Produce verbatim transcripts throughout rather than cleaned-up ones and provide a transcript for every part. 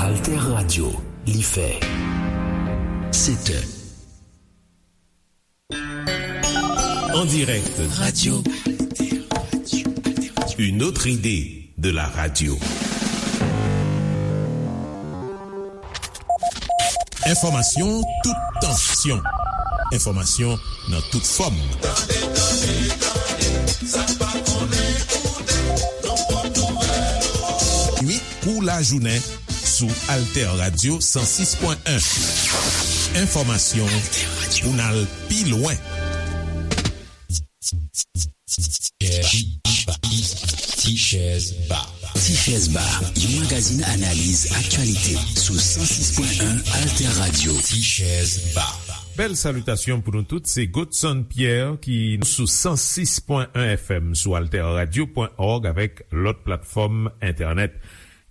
Alter Radio, li fè sèt è. En direct. Radio. Une autre idée de la radio. Enfòmasyon tout tansyon. Enfòmasyon nan tout fòm. Kou lajounen sou Alter Radio san sis pwen en. Enfòmasyon pou n al pi lwen. Tichèz Ba. Tichèz Ba, yon magazin analiz aktyalite sou san sis pwen en Alter Radio. Tichèz Ba. Bèl salitasyon pou nou tout, se Godson Pierre ki sou san sis pwen en F M sou alterradio pwen org avèk lòt platfòm entènèt.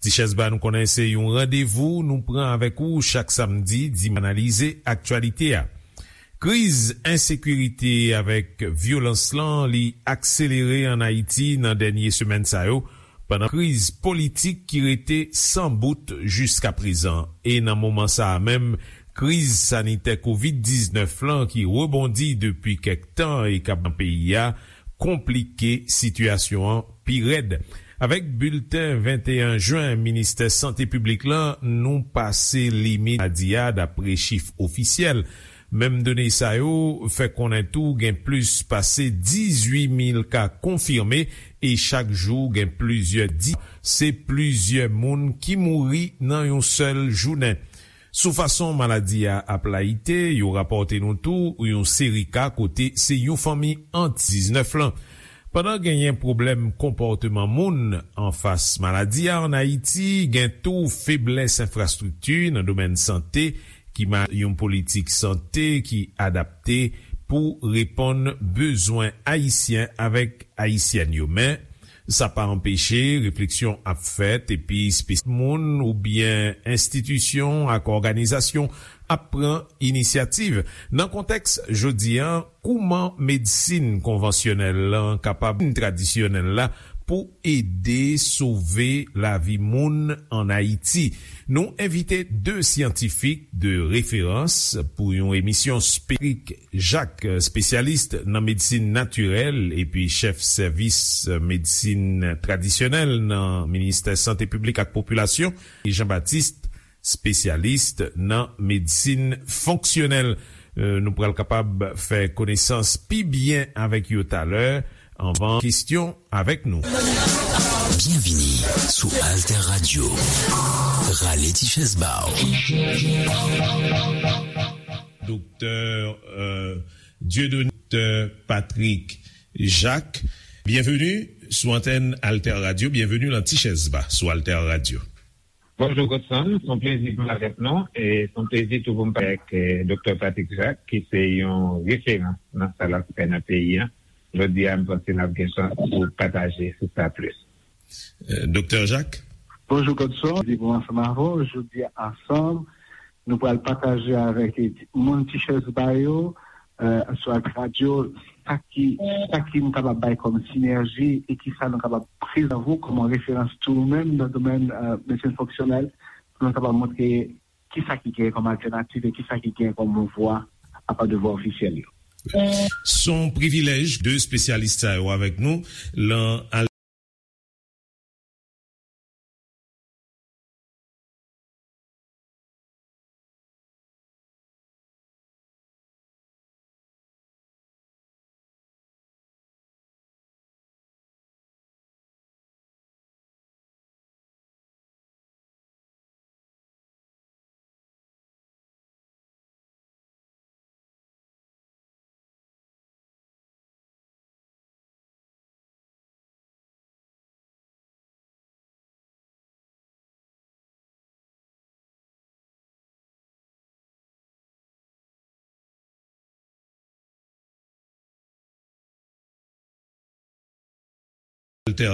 Tichèz Ba, nou konnen se yon randevou nou pran avèk ou chak samdi, di analize aktyalite a. Kriz ensekirite avèk vyolans lan, li akselere ann Ayiti nan dènye semèn sa yo, pandan kriz politik ki rete san bout jiskaprezan. E nan moman sa a menm, kriz sanitè kovid diznèf lan ki rebondi depi kèk tan e k ap nan peyi a, konplike sitiyasyon an pi rèd. Avèk bilten venteyen jen Ministè Sante Piblik lan, nou pase limit maladi a, dapre chif ofisyèl. Menm done sa yo fè konnen tou gen plis pase dizuit mil ka konfime e chak jou gen plizyè di, se plizyè moun ki mouri nan yon sèl jounen. Sou fason maladi a ap layite, yo rapòte nou tou yon seri ka kote se yon fanmi ant diznèf lan. Pandan genyen pwoblèm konpòteman moun anfas maladi a ann Ayiti, gen tou feblès enfrastrikti nan domèn sante ki ma yon politik sante ki adapte pou reponn bezwen Ayisyen avèk Ayisyèn yo. Men, sa pa anpeche refleksyon ap fèt epi espesyal moun oubyen enstitisyon ak òganizasyon ap pran inisyativ. Nan kontèks jodi a, kouman medsin konvansyonèl lan kapab tradisyonèl la pou ede sove lavi moun ann Ayiti? Nou envite de syantifik de referans pou yon emisyon spesifik. Jak, espesyalis nan medsin natirèl epi chèf sèvis medsin tradisyonèl nan Ministè Sante Piblik ak Popilasyon, e Jean Baptiste, espesyalis nan medsin fonksyonèl. Euh, nou pral kapab fè konesans pi byen avèk yo talè. Anvan kesyon avèk nou. Byenvini sou Alter Radio. Rale ti chèz ba w. Doktè, euh, Dieudonné, Doktè Patrick Jacques, byenveni sou antèn Alter Radio, byenveni nan Ti Chèz Ba sou Alter Radio. Bonjou Godson, se yon plezi pou m avèk nou, e se yon plezi tou pou m pale avèk, eh, Doktè Patrick Jacques, ki se yon referans nan sa l ap fè nan peyi a. Jodi a, m panse n ap gen chans pou pataje sou sa plis. Eh, Doktè Jacques? Bonjou Godson, plezi pou m ansanm avè w. Jodi a ansanm, nou pral pataje avèk moun Ti Chèz Ba yo, eh, sou Alter Radio, sa ki, sa ki nou kapab bay kòm sinèji e ki sa nou kapab prezante kòm referans tou nou menm nan domèn, eh, medsin fonksyonèl, pou nou kapab montre ki sa ki gen kòm altènativ e ki sa ki gen kòm vwa apa de vwa ofisyèl yo. Se yon privilèj de espesyalis sa yo avèk nou lan Alter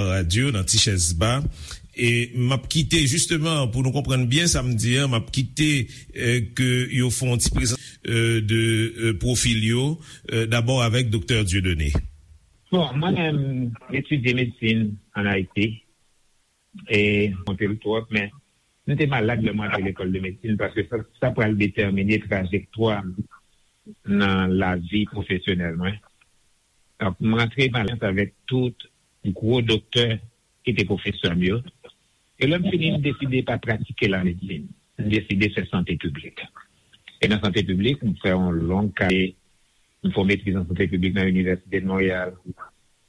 Radio nan Ti Chèz Ba. E m ap kite, jisteman, pou nou konprann byen sa m di a, m ap kite, eh, ke yo fè yon ti prezant, eh, de, eh, pwofil yo, eh, dabò avèk Doktè Dieudonné. Bon, mwen menm, m etidye medsin ann Ayiti. E, m konte l twòp, men M te malad lè m rantre lekòl de medsin paske sa, sa pral detèmine trajektwa m nan lavi pwofesyonèl mwen. Donk, m rantre m alyans avèk tout gwo doktè ki te pwofesè m yo. E lè m fini, m deside pa pratike lamedsin. M deside fè sante piblik. E nan sante piblik, m fè yon long kare, m fè yon metriz an sante piblik nan Inivèsite de Monreyal.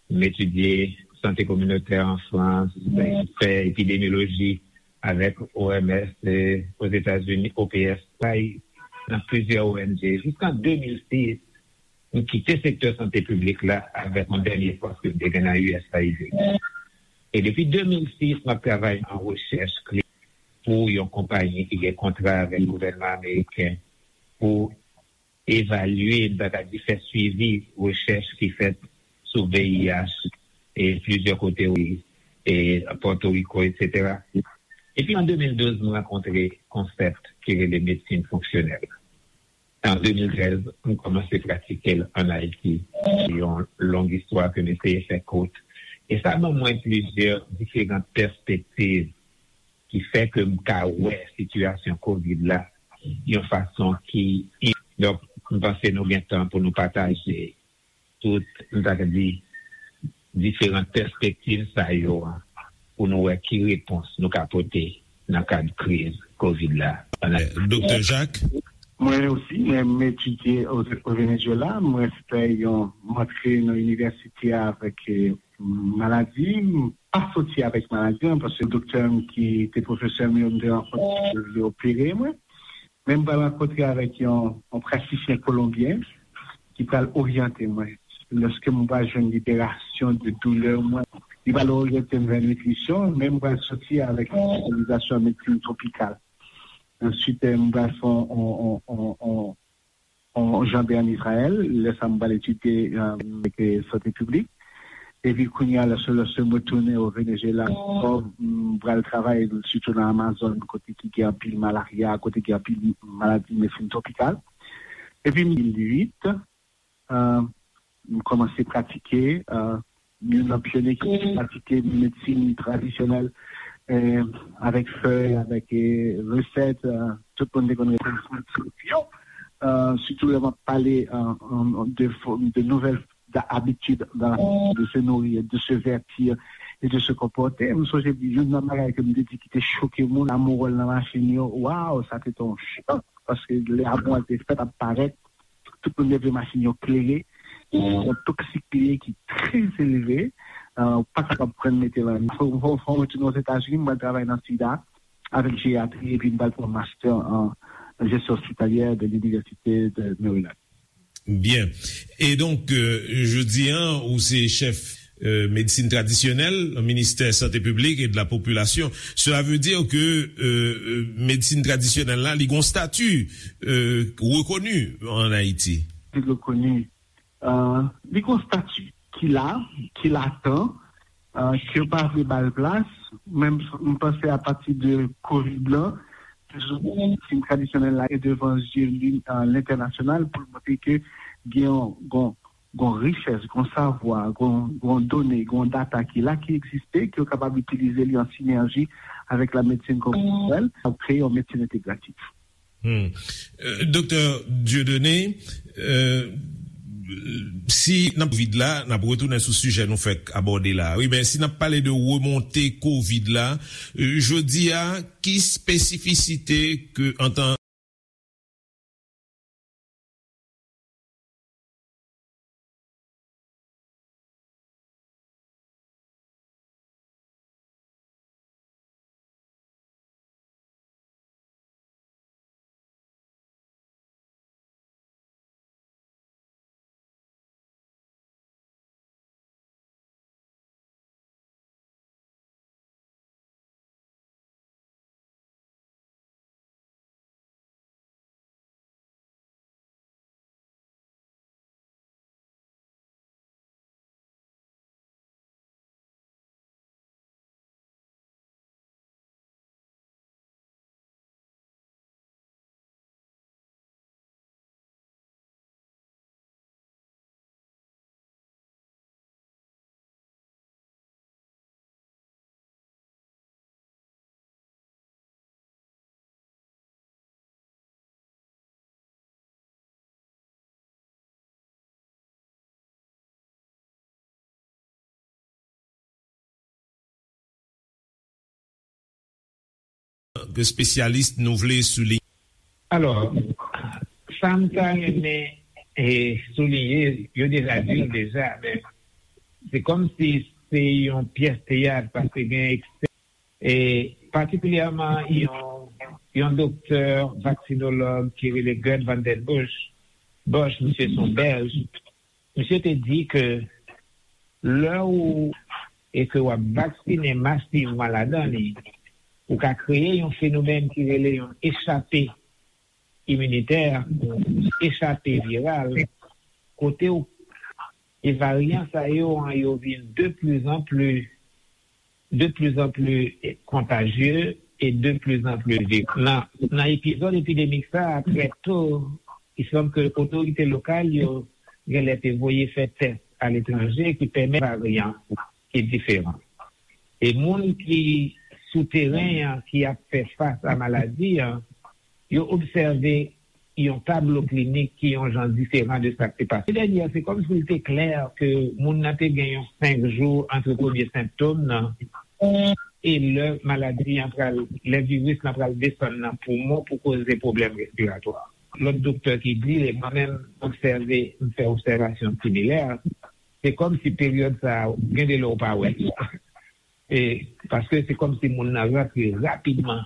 M etidye sante kominotè an Frans, m fè epidemyoloji avèk O M S, e, Ozetazini, O P S, travay nan plizyè O N G. Jiska de mil sis, m kite sektè sante piblik la avèk yon dènye pòs ke m te gen nan U S A I D. E depi de mil sis, m ap travay nan rechèch klinik pou yon konpayi ki gen kontra avèk gouvènman ameriken pou evalye, m ta ka di, fè swivi rechèch ki fèt sou V I H e plizyè kote, e Pòtoriko, etsetera. Epi an de mil douz, m rankontre konsèp ki rele medsin fonksyonèl. An de mil trèz, m kòmanse pratike l ann Ayiti. Se yon long istwa ke m eseye fè kout. E sa ban mwen plizyè diferan pèspektiv ki fè ke m ka wè sitiyasyon kovid la yon fason ki, donk, m panse nou gen tan pou nou pataje tout, m ta ka di, diferan pèspektiv sa yo a, pou nou wè ki repons nou ka pote nan kad kriz kovid la. Doktè Jacques? Mwen osi, mwen, m etidye o, o Venezuela. Mwen fè yon, m antre nan inivèsite a avèk, eh, maladi. M pa soti avèk maladi an, paske doktè m ki te pwofesè m yo, m te rankontre, yo opere mwen. Men m pral rankontre avèk yon, yon pratisyen kolonbyen ki pral oryante mwen. Lòske m pral jwenn liberasyon de doulè mwen, li pral oryante m vè nitrisyon, men m pral soti avèk yon espesyalizasyon an medsin twopikal. Answit, eh, m pral fè yon, yon, yon, yon, yon, yon janbe ann Izrayèl. Lè sa a, m pral etidye, eh, avèk, eh, sante piblik. Epi kounye a, lòske, lòske m retounen o Venezuela ankò, m pral travay sitou nan Amazòn, kote ki gen anpil malarya, kote gen anpil maladi medsin twopikal. Epi mil uit, eh, m kòmanse pratike, eh, youn nan pyonye ki pratike medsin tradisyonèl, eh, avèk fèy, avèk, eh, resèt, eh, tout moun te konn rele yo. Eh, sitou lè m ap pale, eh, de, de nouvèl abitid de se nourrir, de se vêtir et de se comporter. M sonje youn nan bagay ke m te di ki te choke moun, amou wòl nan machin yo. Waw, sa te yon chòk, paske lè amou a te fèt ap parèt, tout moun leve machin yo klere. Se yon toksik li ye ki trè elve. Eh, ou pa kapab pran mete lan. Fò, fò, fò mwen retounen Ozetazini, mwen travay nan sida avèk jeyatri, epi m pral pran master an jesyon ospitalyè de l'Université de Maryland. Byen. E donk, euh, jodi a, ou se chèf, euh, medsin tradisyonèl nan ministè sante piblik e de la popilasyon. Cela veut dire que, euh, euh, medsin tradisyonèl la, li gon stati, euh, rekoni an Ayiti. Li rekoni, euh, li gon stati ki la, ki latan, euh, ke yo pa vle ba l plas. Menm, m panse apati de kovid lan, medsin tradisyonèl la e devan zye li, euh, lentènasyonal pou l montre ke gen yon, gon, gon richès, gon savwa, gon, gon done, gon data ki la, ki egziste, ke yo kapab itilize li an sinèji avèk la medsin konvansiyonèl, pou kreye yon medsin entegratif. Hmm. Euh, Doktè Dieudonné, euh, si n ap kovid la, n ap retounen sou sijè nou fèk abòde la. Wi, men si n ap pale de remonte kovid la, euh, jodi a, ki espesifisite ke antan Espesyalis nou vle souliye. Alò, sa m ta renmen e, souliye, yo deja di l deja, men se kòmsi se yon pyès teyat, paske gen eksè, e patikilyèman yon, yon doktè vaksinolog ki rele Gerd van den Bush, Bosch, misye se yon bèlj, misye te di ke lè ou e ke w ap vaksinen masivman ladan li, ou ka kreye yon fenomèn ki rele yon echape iminitè, echape viral, kote w, e varyan sa yo an, yo vin de plus en plus, de plus en plus kontajye e de plus en plus vire. Nan, nan epizòd epidemik sa a, trè to, il semble ke otorite lokal yo genlè te voye fè tès aletranje ki pèmèt varyan ki diferan. E moun ki sou teren an, ki ap fè fas a maladi an, yo obsève yon tablo klinik ki yon jan diferan de sa k te pase. Dènye, se kòmsi l te klè ke moun nan te gen yon senk jou ant premye sentòm nan e lè maladi an pral, lè viris lan pral desann nan poumon pou koze pwoblèm respiratwa. Lòt doktè ki di, e mwen menm, obsève, m fè obsèvasyon similè, se kòmsi peryòd sa a, gen de lè w pa wè l. E, paske se kòmsi moun nan rantre rapidman.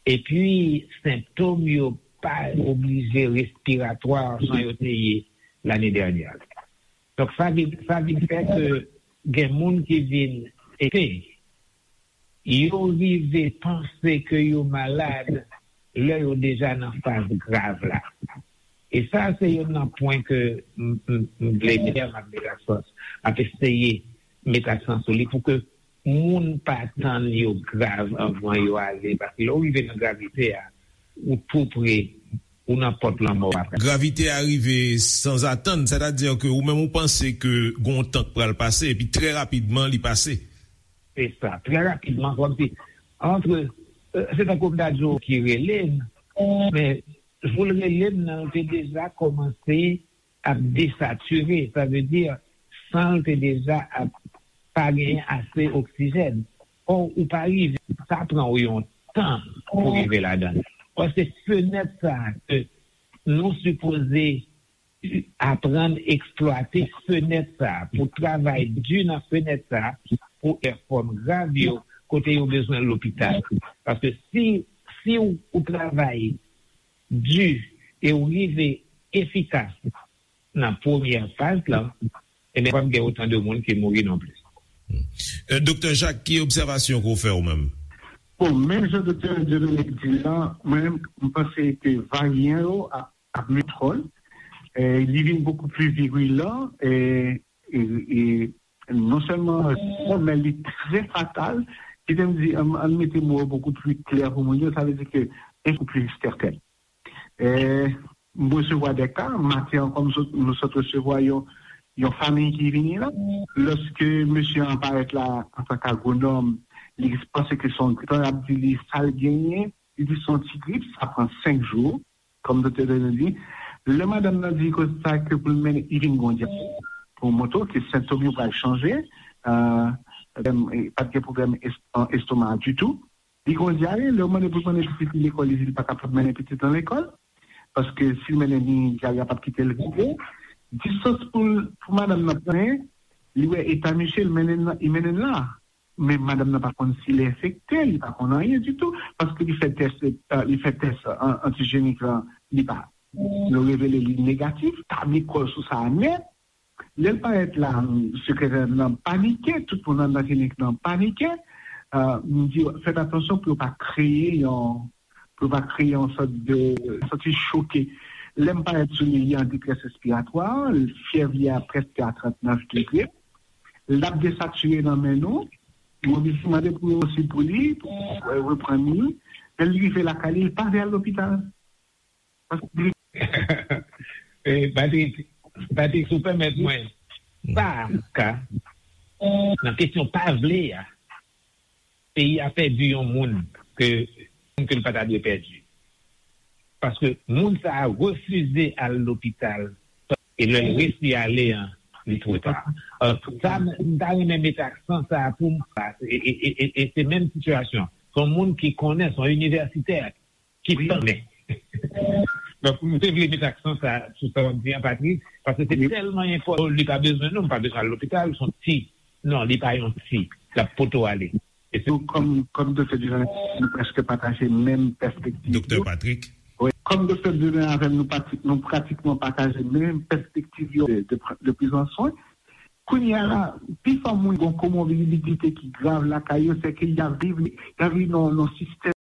Epi, sentòm yo pa oblije respiratwa jan yo te ye lane dènyè. Donk, sa vin, sa vin fè ke gen moun ki vin ete. Yo rive panse ke yo malad lè yo deja nan faz grav la. E sa, se youn nan pwen ke m, m, m vle mete, m ap mete aksan, m ap eseye mete aksan sou li pou ke moun pa tann yo grav anvan yo ale. Paske lè w rive nan gravite a, ou tou pre, ou nan pòt lanmò a. Gravite a rive sanzatann, sètadi ke ou menm ou panse ke gon tan k pral pase, epi trè rapidman li pase. Se sa, trè rapidman, kòmsi, antre, euh, se tankou m ta di w ki rele n, men jou l rele n nan, l te deja kòmanse ap desatire, sa vle di, san l te deja ap pa genyen ase oksijèn. Ò, ou pa rive, sa pran w yon tan pou rive ladan l. Paske fenèt sa a ke nou sipoze aprann eksplwate fenèt sa a, pou travay di nan fenèt sa a, pou fè fòm grav yo, kote yo bezwen lopital. Paske si, si w, ou travay di e w rive efikas nan premyè faz lan, ebyen, p ap gen otan de moun ki mouri non plis. Euh, Doktè Jacques, ki obsèvasyon ke w fè ou menm? Bon, menm jan Doktè Dieudonné di la, mwen menm, m panse ke varyan yo ap, ap mete kò l. E, li vin bokou pli virilan, e, e, e non sèlman, men li trè fatal. Kite m di, ann, ann mete mo yo bokou pli klè pou moun yo, sa vle di ke li bokou pli sèten. E, m resevwa de ka, maten an, kòm sot, nou sot resevwa yon, yon fanmi ki vini la. Lòske mesye an parèt la antanke agwonòm, li panse ke se yon gripan, y ap di li sa l genyen, li di se yon ti grip, sa pran senk jou, kòm doktè Daniel di. Lè madanm nan di konsa ke pou l mennen, li vin gon dyare, pou montre w ke sentòm yo pral chanje, euh, pa t gen pwoblèm es-, an estoma ditou. Li gon dyare, lè w mande pou l mennen pitit li lekòl, li di li pa kapab mennen pitit lan lekòl. Paske si l mennen li, dyare a p ap kite l vire. Distans pou l, pou madanm nan pran, li wè eta misye, li mennen l nan, li mennen l la. Men madanm nan pa konn si l enfekte, li pa konn anyen ditou. Paske li fè tès, euh, li fè tès an-, antijenik lan, li pa. Yo revele li negatif, tabli kò l sou sa a nèt. Lè l parèt la, sekretè nan panike, tout moun anndan klinik nan panike. Euh, m di, fèt atansyon pou yo pa kreye yon, pou yo pa kreye yon sòt de, santi choke. Lè m parèt sou li, li an detrès respiratwa, fyèv li a prèske a trannèf degre. L ap desatire nan men nou. Yo oblije mande pou yo osi pou li, pou reprann li. Lè l rive lakay li, li pa vle al lopital. Eh, Patrick, Patrick, si w pèmèt mwen, sa ka, nan kesyon pa vle a, peyi a pèdi yon moun ke, ke l pa ta dwe pèdi. Paske moun sa a refize al lopital, e lè l resi ale an, li twò ta. Euh, sa, m ta renmen mete aksan sa a pou m, e, e, e, e, e se menm sitiyasyon. Se yon moun ki konnen, se yon inivèsitè ki konnen. Donk, m te vle met aksan sa, sou sa w ap di an, Patrick, paske se tèlman enpòtan. Li pa bezwen nou, m pa bezwen al lopital, se yon ti. Non, li pa yon ti. L ap pote w ale. E se Donk, kòm, kòm Doktè Dieudonné, nou prèske pataje menm pèspektiv. Doktè Patrick. Wi, kòm Doktè Dieudonné avè m, nou, pati, nou pratikman pataje menm pèspektiv yo de, de, de prizan swen. Kounye a la, pifò moun gen yon komorbidite ki grav lakay yo, se ke y ap viv, y ap viv nan, nan sistèm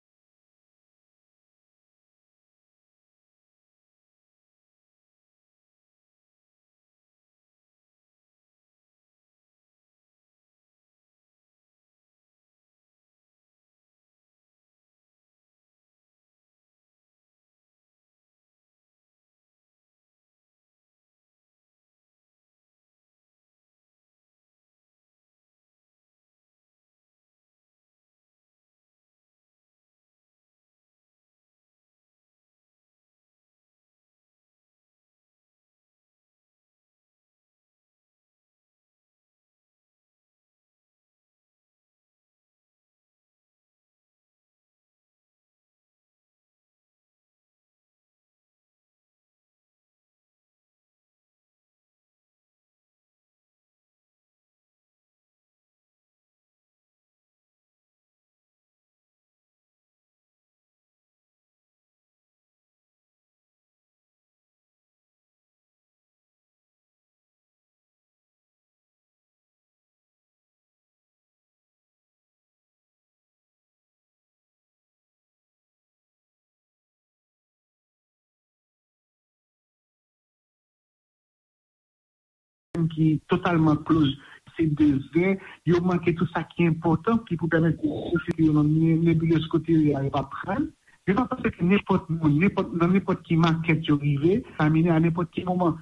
ki totalman close, se de zen, yo manke tout sa ki enpòtan ki pou pèmèt yo sirkile nan ne- nebilez kote yo ye a, yo pa pran l. Yo pa panse ke nenpòt moun, nenpòt, nan nenpòt ki makèt yo rive, kontamine a nenpòt ki moman.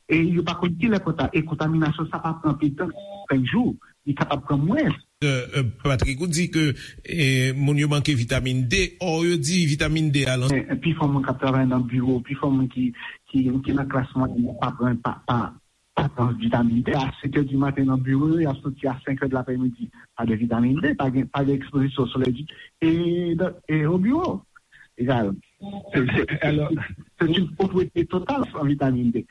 E yo pa konn kilè konta-, e kontaminasyon sa pa pran pi tan, senk jou, li kapab pran mwens. Patrick, ou di ke eh, moun yo manke vitamin D, or yo di vitamin D a lan. Eh, pifò moun k ap travay nan biwo, pifò moun ki, ki, ki nan klas mwayèn, pa pran, pa, pa, pa pran vitamin D. A sèt è di maten nan biwo yo, y ap soti a senk è de laprèmidi. Pa de vitamin D, pa gen, pa gen ekspozisyon solèy di, e, e o biwo. Egal. Se, se, se, se une pauvreté totale en vitamine D.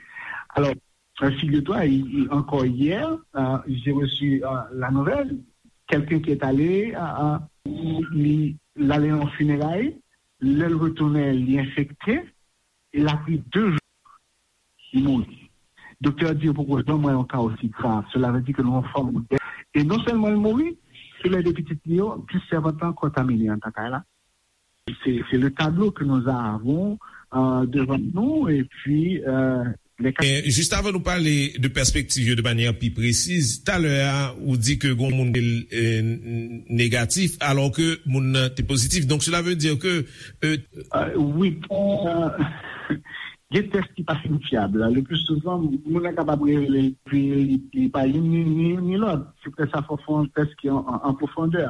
Alors, euh, figure-toi, il- il- encore hier, euh, j'ai reçu euh, la nouvelle, quelqu'un qui est allé, euh, euh, li, l ale nan fineray, lè l retounen, li enfekte, e l ap ri de jou, li mouri. Doktè a di yo poko janm wè yon ka osi grav. Cela veut dire que nou an fòm de. E non sèlman l mouri, tou lè de pitit li yo, plis sèvant lan kontamine anndan kay la. Se, se le tablo ke nou avon euh, devan nou, epi euh, les cas. Eh, juste avant nous parler de perspective de manière plus précise, tout à l'heure, ou dit que gon moun eh, négatif, alors que moun nan te positif. Donc cela veut dire que euh, Euh, wi, euh, gen tès ki pa fin fyab. Le plus souvent, moun nan kapab revele l, epi li, li pa youn ni, ni, ni lòt. Se pou sa fò fè yon tès ki an, an, an pwofondè.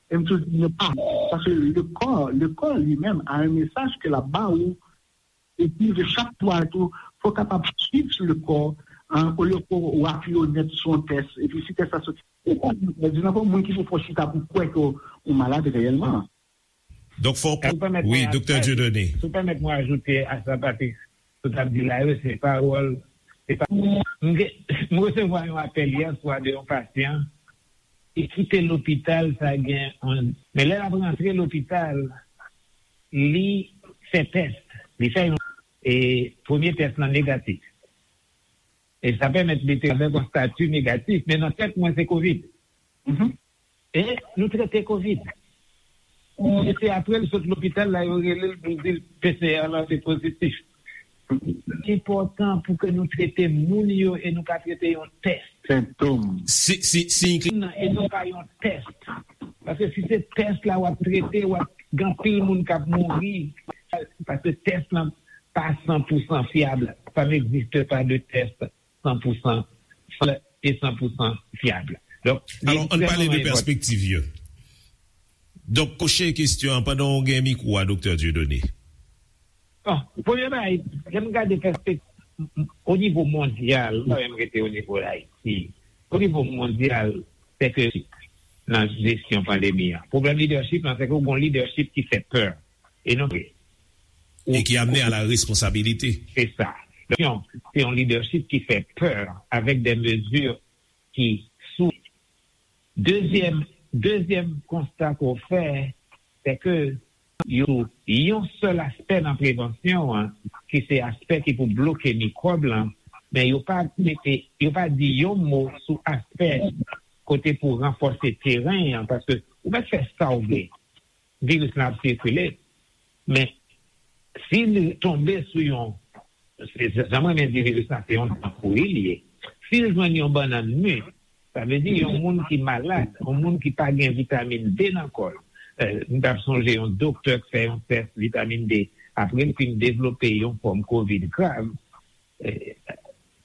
E m toujou di nou pa, paske le kò, le kò li menm a yon mesaj ke l ap ba ou. Epi de chak fwa tou, fò w kapab swiv le kò, hein, olye ke w apiye w nèt sou yon tès. Epi si tès la soti, ou pa di nan fò moun ki pou fò chita pou kwè ke w malad reyèlman. Donk fò w kon- Wi, Doktè Dieudonné. Si w pèmèt mwen ajoute a sa, Patrick, sa w t ap di la yo, se pawòl, se pa, m gen- m resevwa yon apèl yè swa de yon pasyan ki kite lopital, sa gen yon, men lè l ap rantre lopital, li fè tès, li fè yon, e premye tès lan negatif. E sa pèmèt li te avèk yon stati negatif, men nan tèt mwen se kovid. E nou trete kovid. E se apre l sot lopital la, yo rele l pou l di l P C R lan te pozitif. Li enpòtan pou ke nou trete moun yo e nou pa trete yon tès. Sentom. Si, si, si, non, e non pa yon tès. Paske si se tès la w ap trete, w ap gen anpil moun k ap mouri. Paske tès lan pa san pou san fyab. Ça n'existe pas de test san pou san e san pou san fyab. Donk, li ekstrèmman enpòtan. Alò, ann pale de pèspektiv yo. Donk, pwochen kesyon an, pandan w gen mikwo a, Doktè Dieudonné. Bon, premye bagay, lè m gade pèspektiv, o nivo mondyal, m pa menm rete o nivo Ayiti, o nivo mondyal, se ke nan jesyon pandemi an. Pwoblèm lidèchip lan, se ke w gen yon lidèchip ki fè pè. E non vre. E ki amene a la responsabilite. Se sa. Donk, se yon, se yon lidèchip ki fè pè avèk de mezi ki sou. Dezyèm, dezyèm konsta ke w fè, se ke yo sou yon sèl aspè nan prevansyon an, ki se aspè ki pou bloke mikwòb lan, men yo pa mete, yo pa di yon mo sou aspè kote pou ranfòse teren an, paske ou mèt fè sa w vle, viris lan ap sikile, men si li tonbe sou yon, se, se, jan mwen renmen di viris lan, se yon dan pouri li ye. Si l jwenn yon bannann mi, sa vle di yon moun ki malad, yon moun ki pa gen vitamin D nan kò l. Eh, m t ap sonje yon doktè k fè yon tès vitamin D apre l fin devlope yon fòm kovid grav. Eh,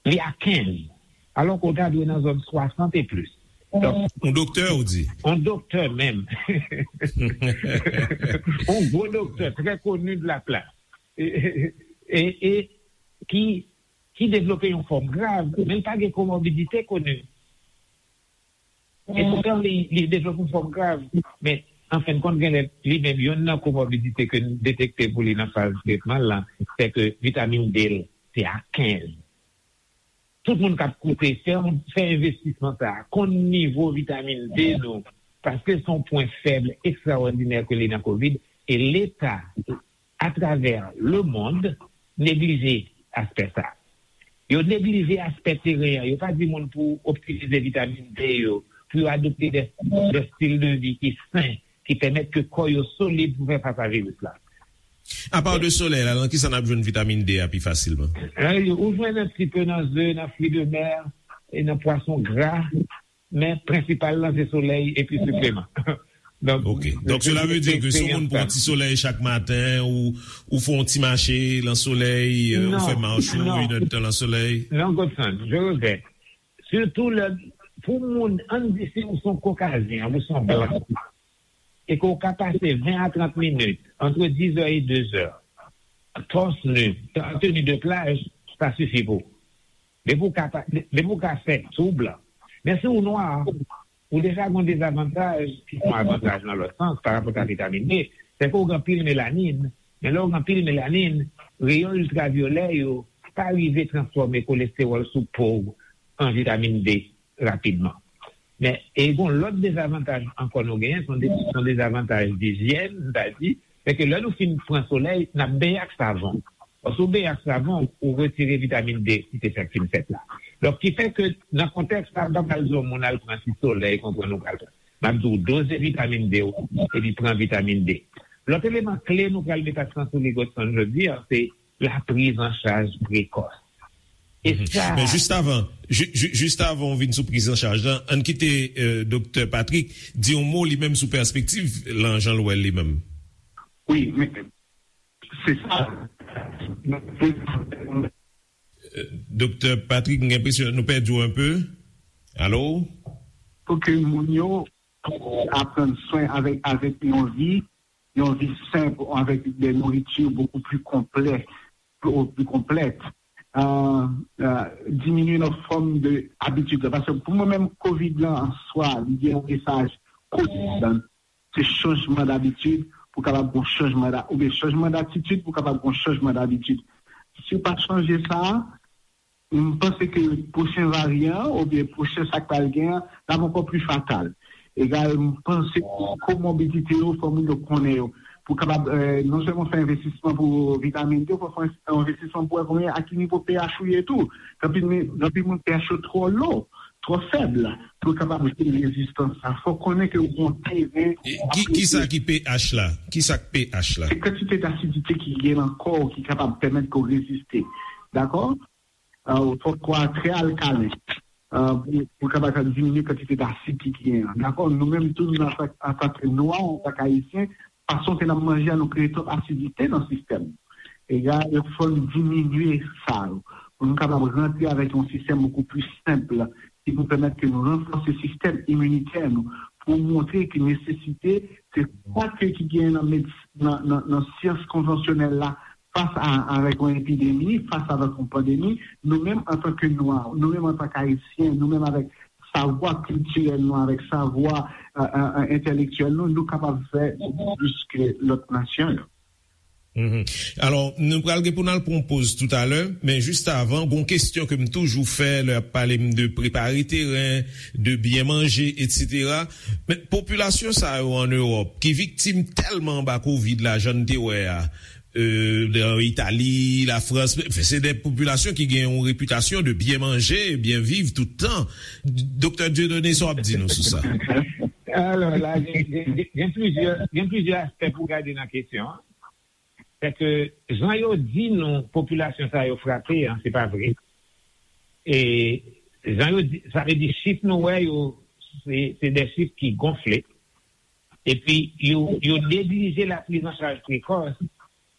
li a kenz, alò ke w ta dwe nan zòn swasant e plis. Donk, yon doktè, ou di? Yon doktè menm. Yon gwo doktè, trè koni de la plas. E, e, e, e ki, ki devlope yon fòm grav, men l pa gen komorbidite koni. E poutan, li, li devlope yon fòm grav. Men, an fen de kont, genlè, li menm, youn nan komorbidite ke n detekte pou li nan faz tretman l lan, se ke vitamin D l, se a kenz. Tout moun k ap koute, fè, fè envestisman sa a, konn nivo vitamin D nou, paske se yon pwen fèb ekstraòdinè ke li nan kovid, e Leta atravè lemonn neglije aspè sa. Yo neglije aspè teren an. Yo pa di moun pou optimize vitamin D yo, pou yo adopte de, de stil de vi ki sen, ki pèmèt ke kò yo solid pou fè fas a viris la. Apa de solèy la, nan ki sa n ap jwenn vitamin D a pi fasilman? Eh, ou jwenn un petit peu nan ze, nan fruits de mer, e nan pwason gra, men prensipal lan se solèy epi sipleman. Donk, ok. Donk, cela veut dire que si yon moun pran ti solèy chak maten, ou, ou fè yon ti mache lan solèy, euh, ou fè mach ou, inèdtan lan solèy. Non, Godson, je regrèt. Surtout lè, pou moun, ann di si ou se yon kokazyen, ou se yon blan, e ke w ka pase ven a trant minit, entre dix heures et deux heures, torse nu, en tenue de plage, sa sifi pou ou. Depi w ka pa, depi w ka fè, si w blan. Men si w nwa, ou deja gen yon dezavantaj, ki se yon avantaj nan lòt sans, pa rapò a vitamin D, se ke w gen anpil melanin, men lè w gen anpil melanin, reyon iltravyolè yo pa rive transfòme kolestewòl sou po w an vitamin D rapidman. Men, e gen yon lòt dezavantaj ankò nou genyen, se yon de-, se yon dezavantaj dijyèn, m ta di, se ke lè nou fin pran solèy, n ap benyen ak savon. Lòske w benyen ak savon, ou retire vitamin D ki te fèk fin fèt la. Donk, ki fè ke nan kontèks sa, m pa pral di yon moun al pran ti solèy, konprann ou pral pran. M ap di w doze vitamin D w, epi pran vitamin D. Lòt eleman kle nou pral met aksan sou li, Godson, jodi a, se la prise en charge précoce. E sa. Men jis avan, ju-, ju-, jis avan w vin sou prizanchaj lan, ann kite, euh, Doktè Patrick di yon mo li menm sou pèspektiv lan jan l wè l li menm. Wi, men se sa. Euh, Doktè Patrick, m gen enpresyon nou pèdi w un peu. Alo? Pou ke moun yo aprann swen avèk, avèk yon vi, yon vi senp, avèk de nouriti bokou pli konplè, pli, pli konplèt. Euh, euh, diminye nan fòm de abitid la. Paske pou mwen menm, kovid lan an swa, li gen yon mesaj kotidan. Se chanjman dabitid pou kapab gon chanjman da, oubyen chanjman datitid pou kapab gon chanjman dabitid. Si w pa chanje sa, m panse ke pwochen varyan an, oubyen pwochen sa k pral gen an, l ap ankò pli fatal. Egal, m panse ke komorbidite yo, fò moun yo konnen yo. Pou kapab, eh, non sèlman fè envestisman pou vitamin D, fò fè envestisman pou wè konbyen, a ki nivo pH ou ye tou. Gen anpil mi-, gen anpil moun pH yo twò lo, twò fèb, pou kapab jere rezistans sa. Fò konnen ke ou gon teren. E ki, ki sa ki pH la? Ki sa k pH la? Se kantite d'asidite ki gen nan kò w ki kapab pèmèt ke w reziste. Dakò? Euh, ou fòk kò a trè alkalen, euh, pou, pou kapab diminye kantite dasid ki, ki genyen an. Dakò, nou menm tou, nou, antan, antan ke nwa, antan ke ayisyen, fason ke n ap manje a, nou kreye twòp asidite nan sistèm. Egal, fò n diminye sa yo. Pou nou kapab rantre avèk yon sistèm bokou pli senp, ki pou pèmèt ke nou ranfòse sistèm iminitè nou, pou montre ke nesesite, se sa ke ki genyen nan medis-, nan, nan, nan syans konvansyonèl la, fas a, avèk yon epidemi, fas avèk yon pandemi, nou menm antan ke nwa, nou menm antan ke ayisyen, nou menm avèk savwa kiltirèl nou, avèk savwa, a, a, a, entèlektyèl nou, nou kapab fè plis ke lòt nasyon yo. Mhm. Alò, nou pral gen pou n al pran yon poz toutalè, men jis avan, gon kesyon ke m toujou fè lè y ap pale m de prepare teren, de byen manje, etsetera. Men popilasyon sa yo ann Ewòp, ki viktim tèlman anba kovid la, jan n te wè a, euh, nan Itali, Lafrans, se de popilasyon ki gen yon repitasyon de byen manje, byen viv tout tan. Doktè Dieudonné, sa w ap di nou sou sa? Alò, la, gen, gen, gen, gen plizyè, gen plizyè aspè pou gade nan kesyon an. Sèke jan yo di nou popilasyon sa yo frape an, se pa vre. E jan yo di, sa vle di chif nou wè yo, se, se de chif ki gonfle. Epi yo, yo neglije la priz an chaj prekòs.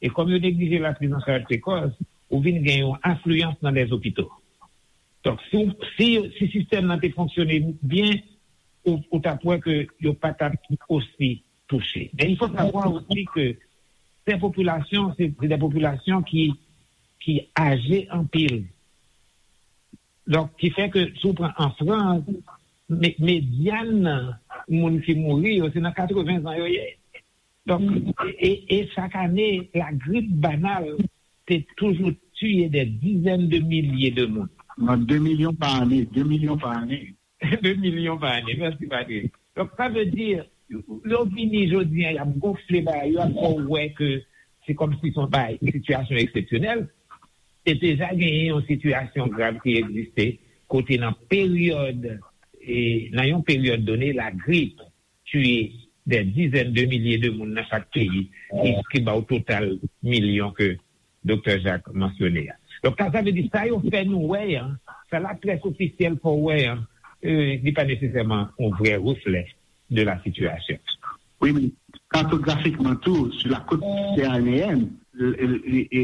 E kòm yo neglije la priz an chaj prekòs, ou vin gen yon afliyans nan lèzopito. Donk, si, si, si sistèm nan te fonksyone byen, ou, ou t ap wè ke yo pa t ap osi touche. Men il faut savoir aussi que ces populations, c'est, c'est des populations qui, qui âgées anpil. Donk, ki fè ke si w pran an Frans, me-, medyan moun ki mouri yo, se nan katreven zan yo ye. Donk, e, e, e chak ane, lagrip banal te toujou tiye des dizaines de milliers de moun. Nan de milyon pa ane, de milyon pa ane. De milyon pa ane, mèsi Patrick. Donk, sa vle di, yo vini jodi a, y ap gonfle bagay yo, ap fè w wè ke se kòmsi se yon bagay, sitiyasyon eksepsyonèl. Te deja genyen yon sitiyasyon grav ki egziste, kote nan peryòd, e, nan yon peryòd done, lagrip tiye des dizaines de milliers de moun nan chak peyi, ki, ki ba w total milyon ke Doktè Jacques mansyone a. Donk, sa, sa vle di, sa yo fè nou wè an, sa la près ofisyèl fè w wè an, e, li pa nesesèman yon vrè reflè de la sitiyasyon. Wi, men katografikman tou, sou la côte méditerranéenne, e, e, e,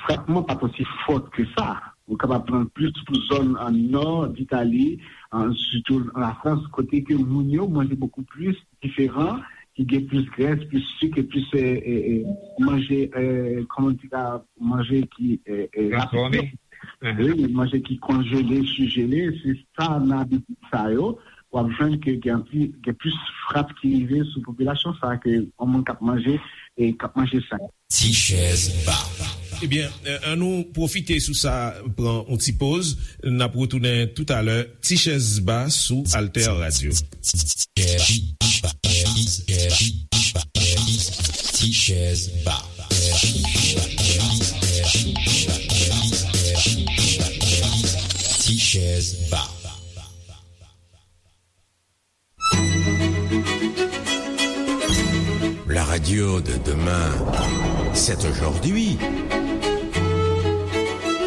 frapman pa t osi fò ke sa. Ou kapab pran plis pou zòn an nò d Itali, an, sitou an Lafrans, kote ke moun yo manje bokou plis diferan, ki gen plis grès, plis sik, e plis, e, e, e, manje, e, kòman di la, manje ki, e, e, transfòme. Wi, manje ki konjele, sijele, se sa nan abitid sa yo. W ap jwenn ke gen anpil, gen plis frap ki rive sou popilasyon sa ke yon moun k ap manje e k ap manje sa. Ti chèz ba. Ebyen, e, ann nou pwofite sou sa, pran yon ti poz. N ap retounen toutalè. Ti chèz ba sou Alter Radio. Ti chèz ba. Ti chèz ba. La radio de demain, c'est aujourd'hui.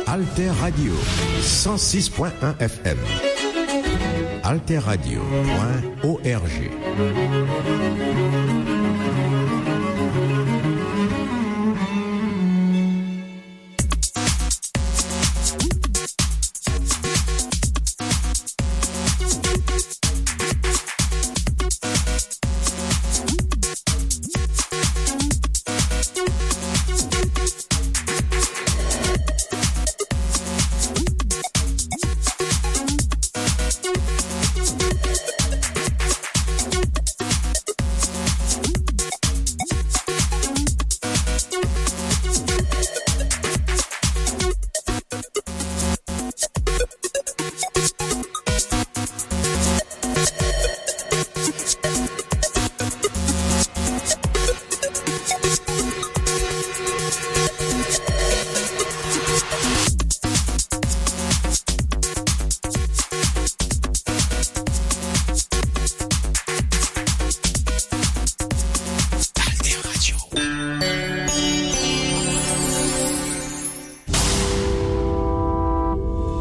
Alter Radio, cent six point un F M. Alter Radio point O R G.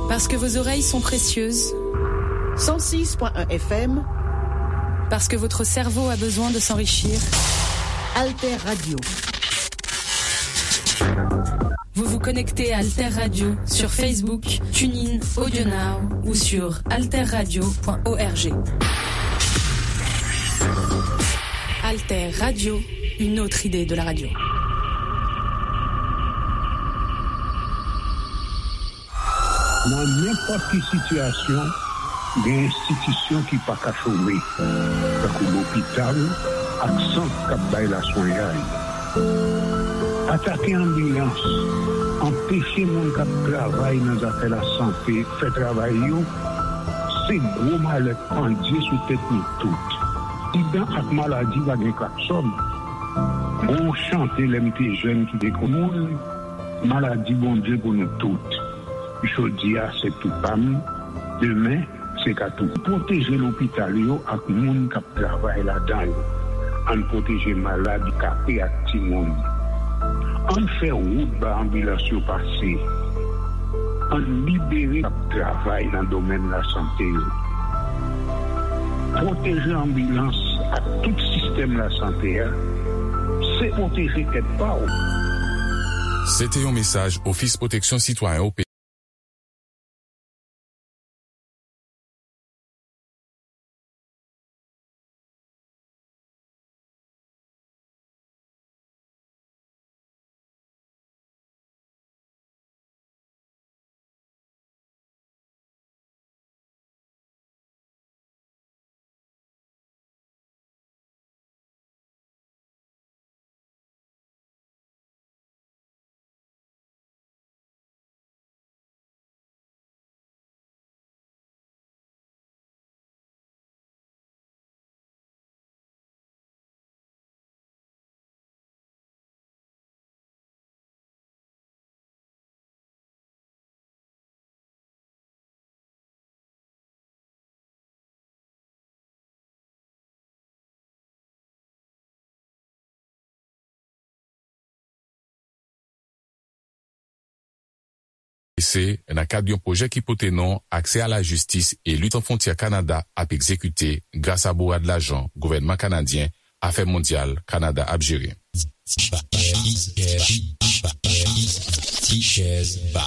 Parce que vos oreilles sont précieuses. Cent six point un F M. Parce que votre cerveau a besoin de s'enrichir. Alter Radio. Vous vous connectez à Alter Radio sur Facebook, TuneIn, AudioNow ou sur alter radio point O R G. Alter Radio, une autre idée de la radio. Nan nenpòt ki sitiyasyon, Gen enstitisyon ki pa ka chome, tankou lopital ak sant k ap bay laswenyay. Atake anbilans, anpeche moun k ap travay nan zafè lasante fè travay yo, se gwo malèt pandye sou tèt nou tout. Aksidan ak maladi pa gen klaksòn. Gon chante lè m te jèn ki te konn moun, maladi Bondye pou nou tout. Jodi a se tou pa m, demen se ka tou. Pwoteje lopital yo ak moun k ap travay ladan yo. Ann pwoteje malad, kape ak timoun. Ann fè wout ba anbilans yo pase. Ann libere k ap travay nan domèn lasante yo. Pwoteje anbilans ak tout sistèm lasante a, se pwoteje tèt pa w. Se te yon mesaj Ofis Pwoteksyon Sitwayen O P. Se nan kad yon pwojè ki pote non Aksè a la jistis e lit an fwontyè Kanada ap egzekite gras a bourad lajan gouvènman kanadyen, Afè Mondyal Kanada ap jere. Ti chèz ba.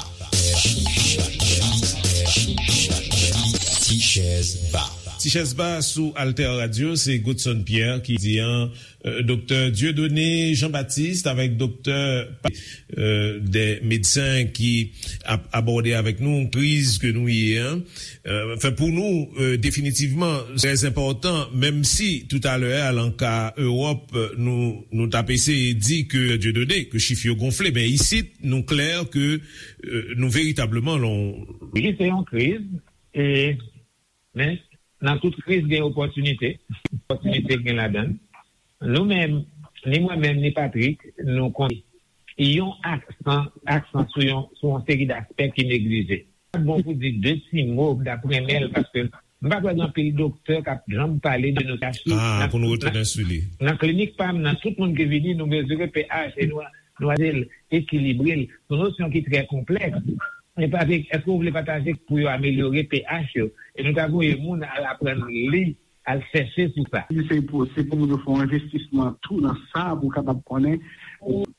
Ti chèz ba. Ti chèz ba sou Alter Radio, se Godson Pierre ki di an, euh, Doktè Dieudonné Jean-Baptiste avèk Doktè Pa-, euh, de medsen ki ap abòde avèk nou kriz ke nou ye an. Euh, anfen, pou nou, euh, definitivman, trè enpòtan, menm si toutalè a, lan ka Ewòp, euh, nou, nou t ap eseye di ke Dieudonné, ke chif yo gonfle, men isit, nou klè ke, euh, nou veritableman lan. Wi, se yon kriz, e, men nan tout kriz, gen opòtinite. Opòtinite gen ladan l. Nou menm, ni mwen menm, ni Patrick, nou konn yon aksan, aksan sou yon, sou yon seri daspè ki neglije. Bon pou di de ti mo, m t ap renmen l, paske m pa kwè gen anpil doktè k ap janm pale de nou. Ah, pou nou retounen sou li. Nan klinik pa m nan, tout moun ki vini, nou mezire pH e nou, nou ade l, ekilibre l. Se yon nosyon ki trè konplèks. E Patrick, èske w vle pataje pou yo amelyore pH yo? E nou ta voye moun al aprann li, al chèche sou sa. Se pou, se pou moun yo fè yon envestisman tou nan sa, pou w kapab konnen.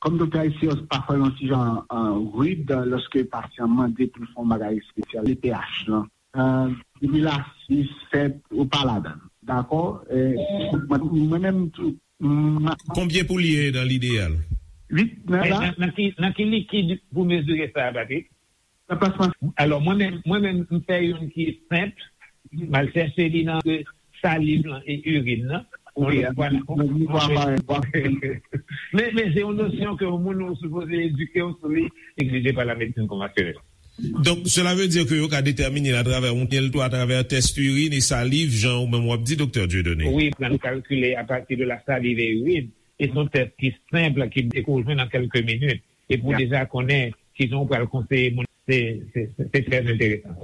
Kòm Doktè Alcios pa fè yon ti jan, euh, rid lòske pasyan mande pou l fè yon bagay espesyal, le pH lan. Euh, depi l asid, sèt, ou pa ladan l. Dakò? E, mwen, mwen menm tou, m, konbyen pou l ye nan lideyal? Uit, nan la. Nan, nan ki, nan ki likid pou mezire sa, Patrick? Nan plasma. Alò, mwen menm, mwen menm, m fè youn ki senp. M al chèche li nan saliv lan e irin nan. Wi, men, men se yon nosyon ke yon moun ou sipoze edike w sou li, egzije pa la medsin konvansyonèl. Donk, sela vle di ke yo ka detèmine l atravè yon tèl tou, atravè tès irin e saliv, jan ou menm w ap di, Doktè Dieudonné. Wi, pran kalkile apati de la saliv e irin. E se yon tès ki senp, ki, ke w jwenn an kèlke minit. E pou deja konnen kijan w pral konseye moun, se, se, se, se trè enteresan.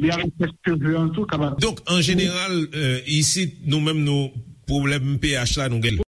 Li avèk tès cheve an tou, kapab. Donk, an jeneral, euh, isit, nou menm, nou, pwoblèm pH la, nou gen.